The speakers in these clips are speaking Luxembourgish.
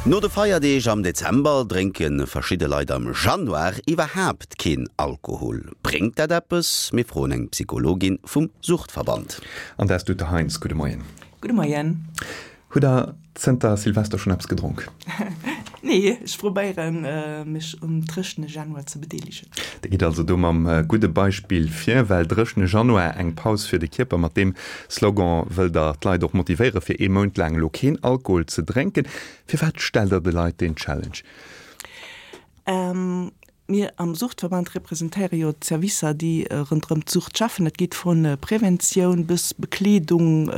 No de Feierdeeg am Dezember drénke verschidde Leit am Januar iwwerhaapt keen Alkohol. Bréngt dat eppes? Mir froen eng Psychologin vum Suchtverband. An dat ass d'Ute Heinz. Gudde Moien. Gudde Moien. Hutt der zënter Silvester schonn eppes gedronk? Nee, ech probéieren mech um dréchene Januar ze bedeelegen. Dir gitt also do mam gudde Beispill vir, well dréchene Januar, eng Paus fir de Kierper, mat deem Slogan wëllt der d'Leit och motivéiere fir ee Mount laang elo keen Alkohol ze drénken. Firwat stellt der de Leit deen Challenge? Mir am Suchtverband representéiere jo d'Servicer, déi ronderëm d'Sucht schaffen. Dat geet vu Preventioun bis Bekleedung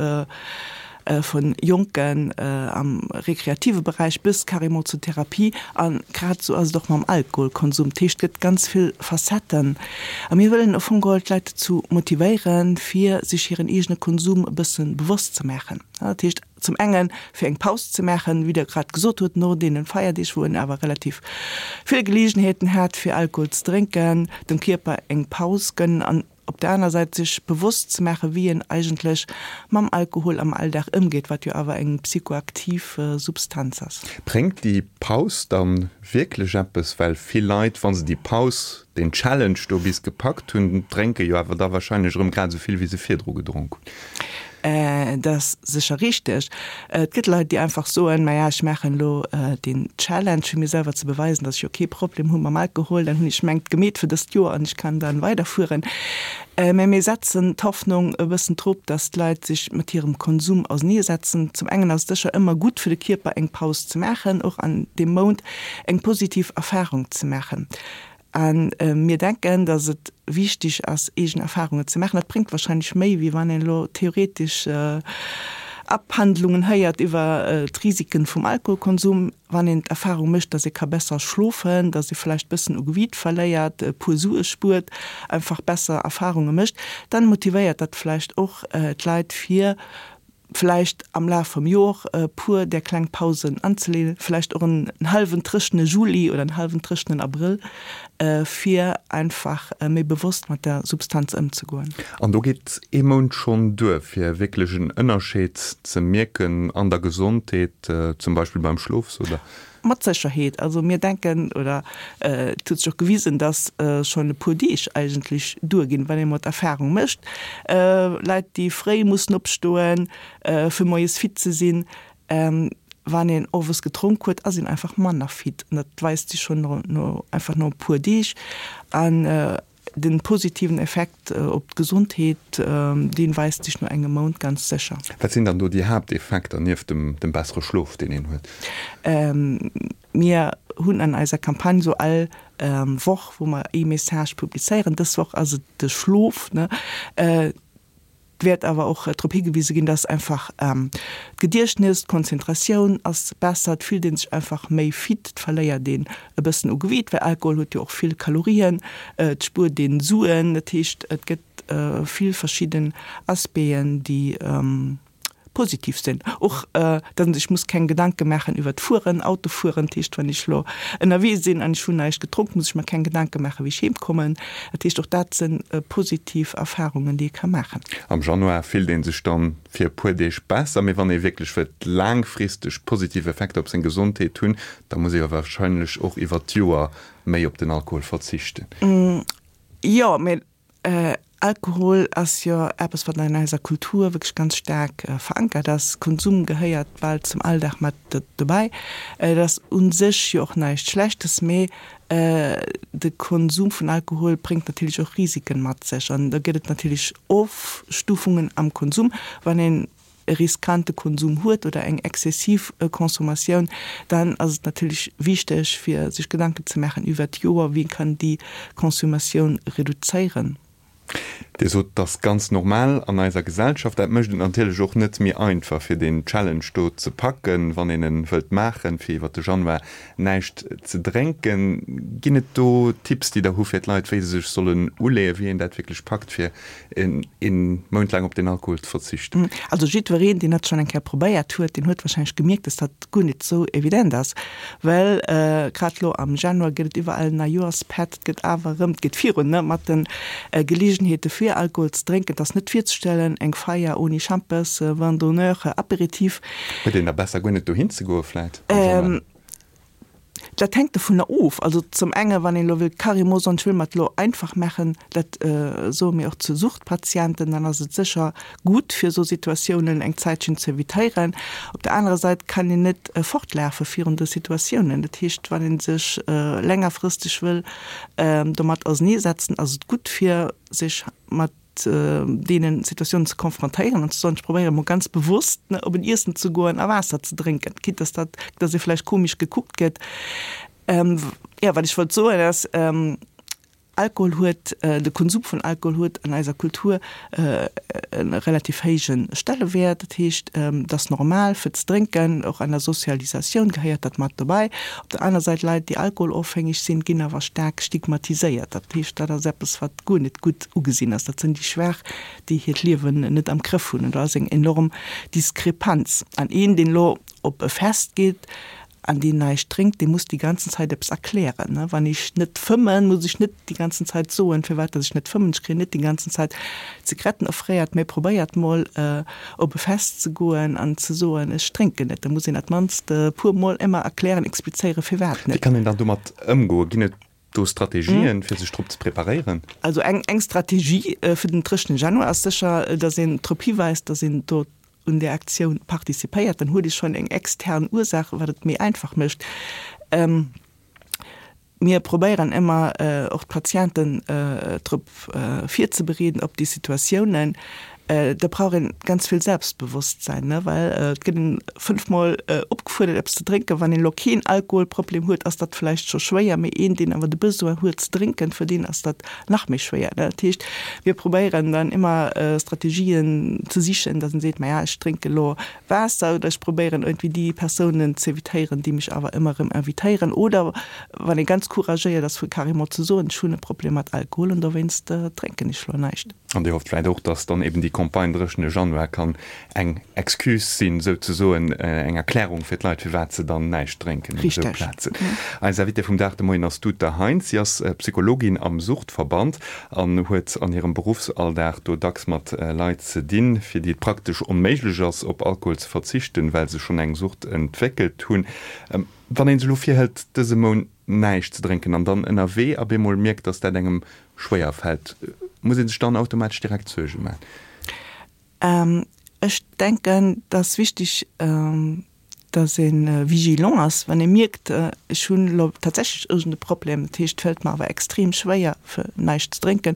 vu Jonken am rekreative Beräich bis carrément zur Therapie. A grad esou ass et och mam Alkoholkonsum. Dat heescht, et gëtt ganz vill Facetten. A mir wëllen au fong geholl d'Leit dozou motivéieren, fir sech hiren eegene Konsum e bësse bewosst ze maachen. Dat heescht, Zum enge fir eng Paus ze maachen, wéi Der grad gesot hutt, no deene Feierdeeg, wou en awer relativ vill Geleegenheeten hat, fir Alkohol ze drénken, dem Kierper eng Paus gënnen an op der aner Säit sech bewosst ze maachen, wéi een eigentlech mam Alkohol am Alldag ëmgeet, wat jo awer eng psychoaktiv Substanz ass. Bréngt déi Paus dann wierklech eppes? Well vill Leit, wa se déi Paus, deen Challenge do bis gepackt hunn, drénke jo awer da wahrscheinlech erëm grad esou vill, wéi se virdru gedronk hunn. Dat ass sécher richteg. Et gëtt Leit, déi einfach soen, Maja, ech maachen elo deen Challenge, fir mir selwer ze beweisen, datt ech jo kee Problem hu mam Alkohol. Dann hunn ech mengt gemeet fir dëst Joer an ech kann dann weiderfueren. Mä mir setzen d'Hoffnung e bëssen drop, datt d'Leit sech mat hirem Konsum auseneesetzen. Zum engen ass et sécher ëmmer gutt fir de Kierper, eng Paus ze maachen, och an deem Mount eng positiv Erfarung ze maachen. A mir denken, datt et wichtig ass, eegen Erfahrungen ze maachen. Dat bréngt wahrscheinlech méi, wéi wann een elo theoretesch Abhandlungen héiert iwwer d'Risiken vum Alkoholkonsum. Wann een d'Erfahrung mécht, datt ee ka besser schlofen, datt ee vläicht bëssen u Gewiit verléiert, e puer Sue spuert, einfach besser Erfahrunge mécht, dann motivéiert dat vläicht och d'Leit, fir vläicht am Laf vum Jor e puer där kleng Pausen anzeleeën, vläicht och en hallwen dréchene Juli oder en hallwen dréchenen Abrëll, fir einfach méi bewosst mat der Substanz ëmzegoen. An do geet ee Mount schonn duer, fir wierklech en Ënnerscheed ze mierken an der Gesondheet, zum Beispill beim Schlof, sot Der? Mat Sécherheet. Also mir denken, oder et huet sech och gewisen, dass schonn e puer Deeg eigentlech duerginn, wann ee mol d'Erfahrung mécht, Leit, déi fréi mussen opstoen, fir moies fit ze sinn, wann een owes gedronk huet, ass een einfach manner fit. An dat weist sech schonn no einfach no e puer Deeg. An Den positiven Effekt op d'Gesondheet, deen weist sech no engem Mount ganz sécher. Wat sinn dann do déi Haapteffekter nieft dem bessere Schlof, deen een huet? Mir hunn an eiser Campagne sou all Woch, wou mer ee Message publizéieren, dës Woch ass et de Schlof, ne? Et wäert awer och drop higewise ginn, dass einfach d'Gediechtnes, d'Konzentratioun ass besser, et fillt ee sech einfach méi fit, et verléiert een e bëssen u Gewiit, well Alkohol huet jo och vill Kalorien, et spuert een Suen. Dat heescht, et gëtt vill verschidden Aspecten, déi positiv sinn. Och dass een sech muss keng Gedanke maachen iwwert d'Fueren, Autofueren. Dat heescht, wann ech elo ënnerwee sinn an ech hunn näischt gedronk, muss ech mer keng Gedanke maachen, wéi ech heem kommen. Dat heescht, och dat si positiv Erfarungen, déi ee ka maachen. Am Januar fillt ee sech dann fir e puer Deeg besser, mee wann ee wierklech wëllt laangfristeg positiv Effekter op seng Gesondheet hunn, da muss ee jo warscheinlech och iwwert d'Joer méi op den Alkohol verzichten. Jo, mee Alkohol ass jo eppes, wat an eiser Kultur wierklech ganz staark verankert ass. Konsum gehéiert bal zum Alldag mat dobäi. Et ass u sech jo och näischt Schlechtes, mee de Konsum vun Alkohol bréngt natierlech och Risiken mat sech. An da gëtt et natierlech Ofstufungen am Konsum. Wann een e riskante Konsum huet oder eng exzessiv Consommatioun, dann ass et natierlech wichteg, fir sech Gedanken ze maachen iwwert d'Joer, wéi kann déi Consommatioun reduzéieren. Dir sot, et ass ganz normal an eiser Gesellschaft. Dat mécht et natierlech och net méi einfach, fir deen Challenge do ze packen, wann een en wëllt maachen, fir iwwert de Januar näischt ze drénken. Ginn et do Tipps, déi Der hu fir d'Leit, wéi se sech sollen uleeën, wéi een dat wierklech packt, fir een Mount laang op den Alkohol ze verzichten? Also jiddwereen, deen dat schonn eng Kéier probéiert huet, deen huet warscheinlech gemierkt, dass dat guer net esou evident ass, well grad elo am Januar gëtt et iwwerall Neijoerspett, et gëtt awer erëm, et geet virun, ne, mat de Geleegenheete fir Alkohol ze drénken. Et ass net virzestellen, eng Feier ouni Schampes, Vin d'honneur, Aperitif. Huet een da besser guer net dohin ze goe vläit am Januar? Dat hänkt dovunner of. Also zum enge wann een elo wëllt carrément soen, ech wëll mer et elo einfach maachen, dat soe mir och zu Suchtpatienten, dann ass et sécher gutt fir esou Situatiounen eng Zäitchen ze evitéieren. Op der anerer Säit kann een net fortlafe virun de Situatiounen. Dat heescht, wann ee sech längerfristeg wëll domat auserneesetzen, ass et gutt fir sech mat deenen Situatiounen ze konfrontéieren an ze soen, ech probéiere mol ganz bewusst op en Iessen ze goen a Waasser ze drénken, quitte dass dat, dass ee vläicht komesch gekuckt gëtt. Jo, wat ech wollt soen ass, Alkohol huet, de Konsum vun Alkohol huet an eiser Kultur e relativ héije Stellewäert. Dat heescht, et ass normal fir ze drénken, och an der Sozialisatioun gehéiert dat mat dobäi. Op der aner Säit, Leit déi alkoholofhängeg sinn, ginn awer staark stigmatiséiert. Dat heescht, dat ass eppes wat guer net gutt ugesinn ass. Dat sinn déi Schwaach, déi hiert Liewen net am Grëff hunn. An do ass eng enorm Diskrepanz. An een, deen elo op e Fest geet an deen näischt drénkt, dee muss déi ganzen Zäit eppes erklären. Wann ech net fëmmen, muss ech net déi ganzen Zäit soen, firwat datt ech net fëmmen. Ech kréien net déi ganzen Zäit Zigaretten offréiert. Mä probéiert mol op e Fest ze goen an ze soen, ech drénken net. Da muss een dat mannst e puer Mol ëmmer erklären, explizéieren, firwat net. Wéi kann een dann domat ëmgoen? Ginn et do Strategien, fir sech drop ze preparéieren? Also eng eng Strategie fir den dréchene Januar ass sécher, datt een drop hiweist, datt een do un där Aktioun participéiert. Dann huet ee schonn eng extern Ursaach, wat et méi einfach mécht. Mir probéieren ëmmer och d'Patienten drop virzebereeden op déi Situatiounen. Da brauch een ganz vill Selbstbewosstsein, ne, well et gëtt een fënnfmol opgefuerdert eppes ze drénken. Wann een elo keen Alkoholproblem huet, ass dat vläicht scho schwéier, mee een, deen awer de Besoin huet ze drénken, fir deen ass dat nach méi schwéier, ne. Dat heescht, mir probéieren dann ëmmer Strategien ze sichen, datt een seet, maja, ech drénke elo Waasser oder ech probéieren iergendwéi déi Persounen z'evitéieren, déi mech awer ëmmer erëm invitéieren. Oder wann ee ganz couragéiert ass, fir carrément ze soen, ech hunn e Problem mat Alkohol an dowéinst drénken ech elo näischt. An Dir hofft vläit och, dass dann eben déi Campagne dréchene Januar kann eng Excuse sinn, souzesoen eng Erklärung fir d'Leit, firwat se dann näischt drénken un esou Plazen. Eis Invitée vum Dag de Moien ass d'Uta Heintz. Si ass Psychologin am Suchtverband an huet an hirem Beruffsalldag do dacks mat Leit ze dinn, fir déi et praktesch onméiglech ass, op Alkohol ze verzichten, well se schonn eng Sucht entwéckelt hunn. Wann ee sech elo virhëlt, dëse Mount näischt ze drénken an dann ënnerwee op eemol mierkt, dass dat engem schwéier fält, muss ee sech dann automatesch direkt Suerge maachen? Ech denken, et ass wichteg, dass ee vigilant ass, wann ee mierkt, ech hunn elo tatsächlech iergend e Problem, dat heescht, et fält mer awer extrem schwéier, fir näischt ze drénken.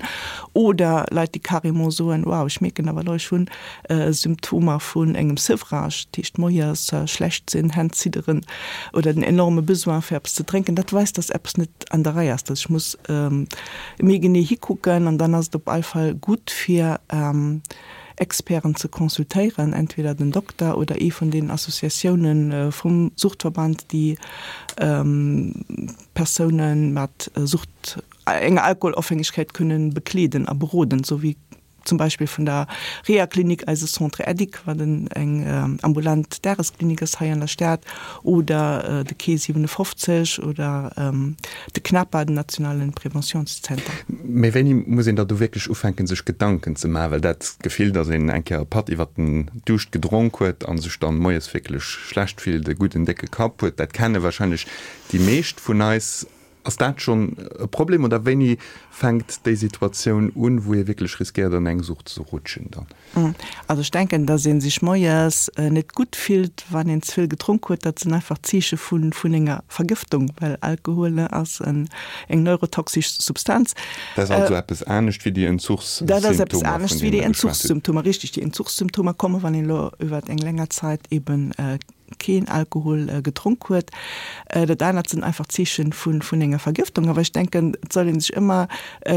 Oder Leit, déi carrément soen, wow, ech mierken awer elo, ech hunn Symptomer vun engem Sevrage, dat heescht moies schlecht sinn, Hänn zidderen oder den enorme Besoin fir eppes ze drénken, dat weist, dass eppes net an der Rei ass, dass ech muss méi genee hikucken. An dann ass et op all Fall gutt fir Experten ze consultéieren, entweder den Dokter oder ee vun den Associatioune vum Suchtverband, déi Persoune mat Sucht, enger Alkoholofhängegkeet kënnen bekleeden a beroden, esou wéi zum Beispill vun der Rehaklinik, eise Centre Edic, wat eng ambulant Dagesklinik ass hei an der Stad, oder de Quai 57 oder de CNAPA, den nationale Preventiounszenter. Mee wéini muss een da do wierklech ufänken, sech Gedanken ze maachen? Well dat Gefill, datt een eng Kéier e Patt iwwert den Duuscht gedronk huet a sech dann moies wierklech schlecht fillt, e gudden décke Kapp huet, dat kenne warscheinlech déi meescht vun eis. Ass dat schonn e Problem oder wéini fänkt déi Situatioun un, wou ee wierklech riskéiert an eng Sucht ze rutschen dann? Also ech denken, datt ee sech moies net gutt fillt, wann een ze vill gedronk huet. Dat sinn einfach Zeeche vun enger Vergëftung, well Alkohol ass eng neurotoxesch Substanz. Dat ass also eppes anescht wéi déi Entzuchssymptomer, vun deene mer geschwat hunn. Dat ass eppes anescht wéi déi Entzuchssymptomer, richtig. Déi Entzuchssymptomer komme wann een elo iwwer eng länger Zäit eben keen Alkohol gedronk huet. Dat anert sinn einfach Zeeche vun enger Vergëftung. Awer ech denken, et soll ee sech ëmmer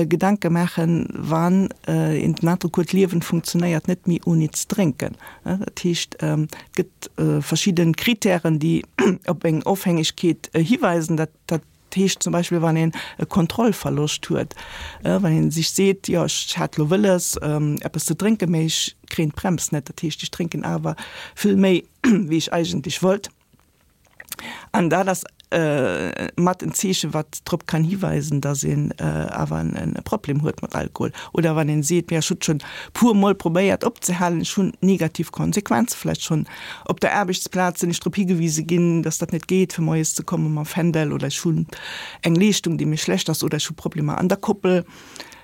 Gedanke maachen, wann een den Androck huet, d'Liewen funktionéiert net méi ouni ze drénken. Dat heescht, et gëtt verschidde Kritären, déi op eng Ofhängegkeet hiweisen. Dat heescht zum Beispill, wann een e Kontrollverloscht huet, wann ee sech seet, jo ech hat elo wëlles eppes ze drénken, mee ech kréien d'Brems net, dat heescht ech drénken awer vill méi wéi ech eigentlech wollt. An dat ass mat en Zeechen, wat drop kann hiweisen, dass een awer e Problem huet mat Alkohol. Oder wann een seet, Ech hunn schonn puer Mol probéiert opzehalen, ech hunn negativ Konsequenze vläicht schonn op der Aarbechtsplaz sinn ech drop higewise ginn, dass dat net geet, fir moies ze komme mam Fändel, oder ech hunn eng Leeschtung, déi méi schlecht ass, oder ech hu Problemer an der Koppel.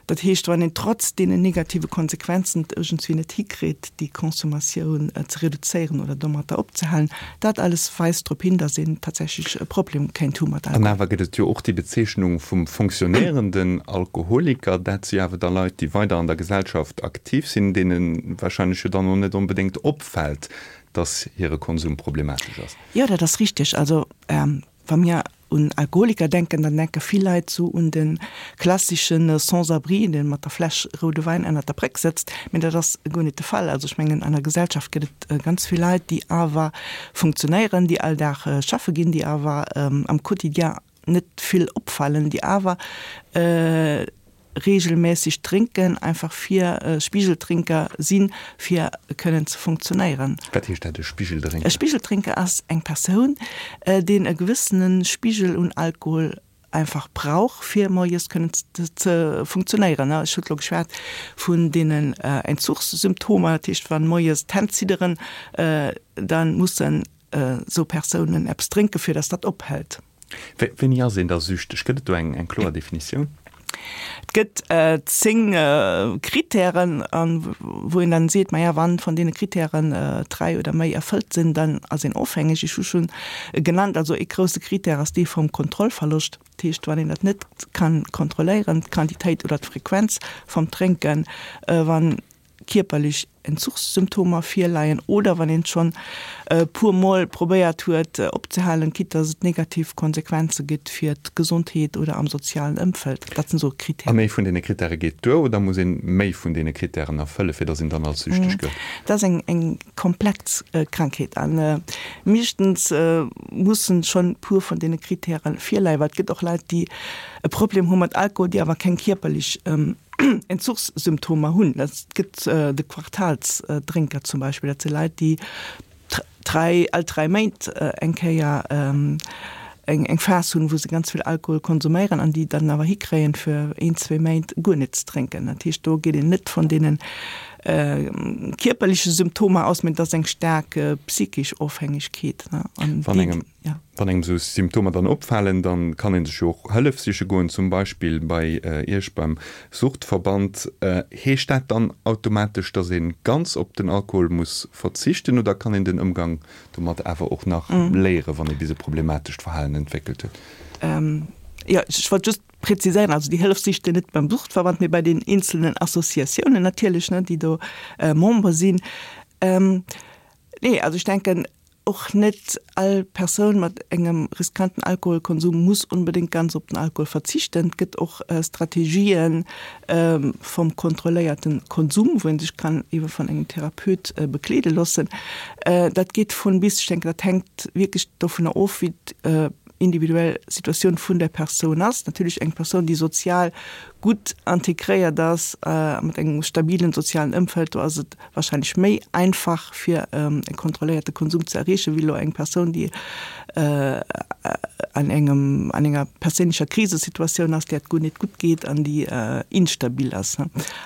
Dat heescht, wann een trotz deenen negative Konsequenzen et iergendswéi net hikritt, déi Consommatioun ze reduzéieren oder domatter opzehalen, dat alles weist drop hin, dass een tatsächlech e Problem kéint hu mat An Alkohol. awer gëtt et jo och déi Bezeechnung vum fonctionnéierenden Alkoholiker. Dat si awer da Leit, déi weider an der Gesellschaft aktiv sinn, deene wahrscheinlech jo dann och net onbedéngt opfält, dass hire Konsum problematesch ass. Jo, dat ass richteg. Also wa mir un Alkoholiker denken, dann denke vill Leit sou un de klassesche Sans-abri, dee mat der Fläsch roude Wäin ënnert der Bréck sëtzt. Mee dat ass guer net de Fall. Also ech mengen, an der Gesellschaft gëtt et ganz vill Leit, déi awer funktionéieren, déi all Dag schaffe ginn, déi awer am Quotidien net vill opfalen, déi awer regelmässeg drénken, einfach fir Spigeltrinker sinn, fir kënnen ze funktionéieren. Wat heescht dat, e Spigeldrénker? E Spigeltrinker ass eng Persoun, deen e gewëssene Spigel un Alkohol einfach brauch, fir moies kënnen ze funktionéieren. Ech hunn elo geschwat vun deenen Entzuchssymptomer, dat heescht, wann moies d'Hänn zidderen, da mussen esou Persounen eppes drénken, fir datt dat ophält. Wéini ass een da süchteg? Gëtt et do eng kloer Definitioun? Et gëtt 10 Kritären, wou een dann seet, maja, wann vun deene Kritären 3 oder méi erfëllt sinn, dann ass een ofhängeg. Ech hu schonn genannt, also ee grousse Kritär ass dee vum Kontrollverloscht. Dat heescht, wann een dat net ka kontrolléieren, d'Quantitéit oder d'Frequenz vum Drénken, wann kierperlech Entzuchssymptomer virleien oder wann een schonn e puer Mol probéiert huet opzehalen, quitte dass et negativ Konsequenze gëtt fir d'Gesondheet oder am sozialen Ëmfeld. Dat sinn esou Kritären. An ee vun deene Kritäre geet duer oder muss een méi vun deene Kritären erfëlle fir dass een dann als süchteg gëllt? Dat ass eng eng komplex Krankheet a meeschtens mussen schonn e puer vun deene Kritäre virleien, well et gëtt och Leit déi e Problem hu mat Alkohol, déi awer keng kierperlech Entzuchssymptomer hunn. Dat gëtt de Quartalsdrénker zum Beispill. Dat si Leit, déi dräi, all dräi Méint eng Kéier eng eng Phas hunn, wou se ganz vill Alkohol konsuméieren an déi dann awer hikréien, fir een, zwee Méint guer net ze drénken. Dat heescht, do geet een net vun deene kierperleche Symptomer aus, mä et ass eng staark psychesch Ofhängegkeet. An déi. Wann engem esou Symptomer dann opfalen, dann kann een sech jo och Hëllef siche goen, zum Beispill bei Iech beim Suchtverband. Heescht dat dann automatesch, dass een ganz op den Alkohol muss verzichten oder kann een den Ëmgang domat awer och nach léieren, wann ee bis e problematescht Verhalen entwéckelt huet? Jo, ech wollt just präziséieren, also déi Hëllef sicht een net beim Suchtverband, mee bei den eenzelnen Associatiounen natierlech, ne, déi do Member sinn. Nee, also ech denken, Och net all Persoun mat engem riskanten Alkoholkonsum muss onbedéngt ganz op den Alkohol verzichten. Et gëtt och Strategien vum kontrolléierte Konsum, wou ee sech kann ebe vun engem Therapeut begleede loossen. Dat geet vun bis. Ech denken, dat hänkt wierklech dovunner of, wéi d'individuell Situatioun vun der Persoun ass. Natierlech eng Persoun, déi sozial gutt integréiert ass, mat engem stabilen sozialen Ëmfeld, do ass et wahrscheinlech méi einfach fir e kontrolléierte Konsum ze erreechen, wéi elo eng Persoun, déi an engem, an enger perséinlecher Krisesituatioun ass, där et guer net gutt geet an déi instabil ass.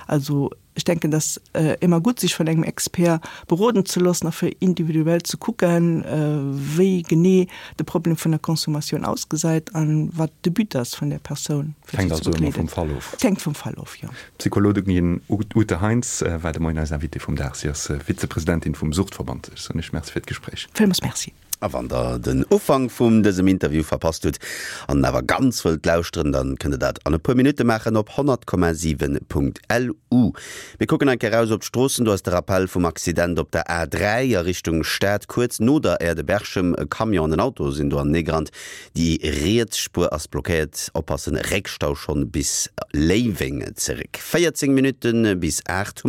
Also ech denken, dass ëmmer gutt, sech vun engem Expert beroden ze loossen a fir individuell ze kucken, wéi genee de Problem vun der Consommatioun ausgesäit an wat de But ass vun där Persoun, fir si ze begleeden. Hänkt also ëmmer vum Fall of. Et hänkt vum Fall of, jo. D'Psychologin Ute Heinz war de Moien eis Invitée vum Dag. Si ass Vizepresidentin vum Suchtverband. Ech soen Iech Merci fir d'Gespréich. Villmools Merci. A wann der den Ufank vum dësem Interview verpasst hutt an en awer ganz wëllt lauschteren, dann kënnt der dat an e puer Minutte maachen op 100,7.lu. Mir kucken eng Kéier raus op d'Stroossen. Do ass de Rappell vum Accident op der A3 a Richtung Stad kuerz no der Aire de Berchem. E Camion an en Auto sinn do aneneegerannt. Déi riets Spuer ass blockéiert. Oppassen, Réckstau schonn bis Léiweng zeréck. 14 Minutte bis 8.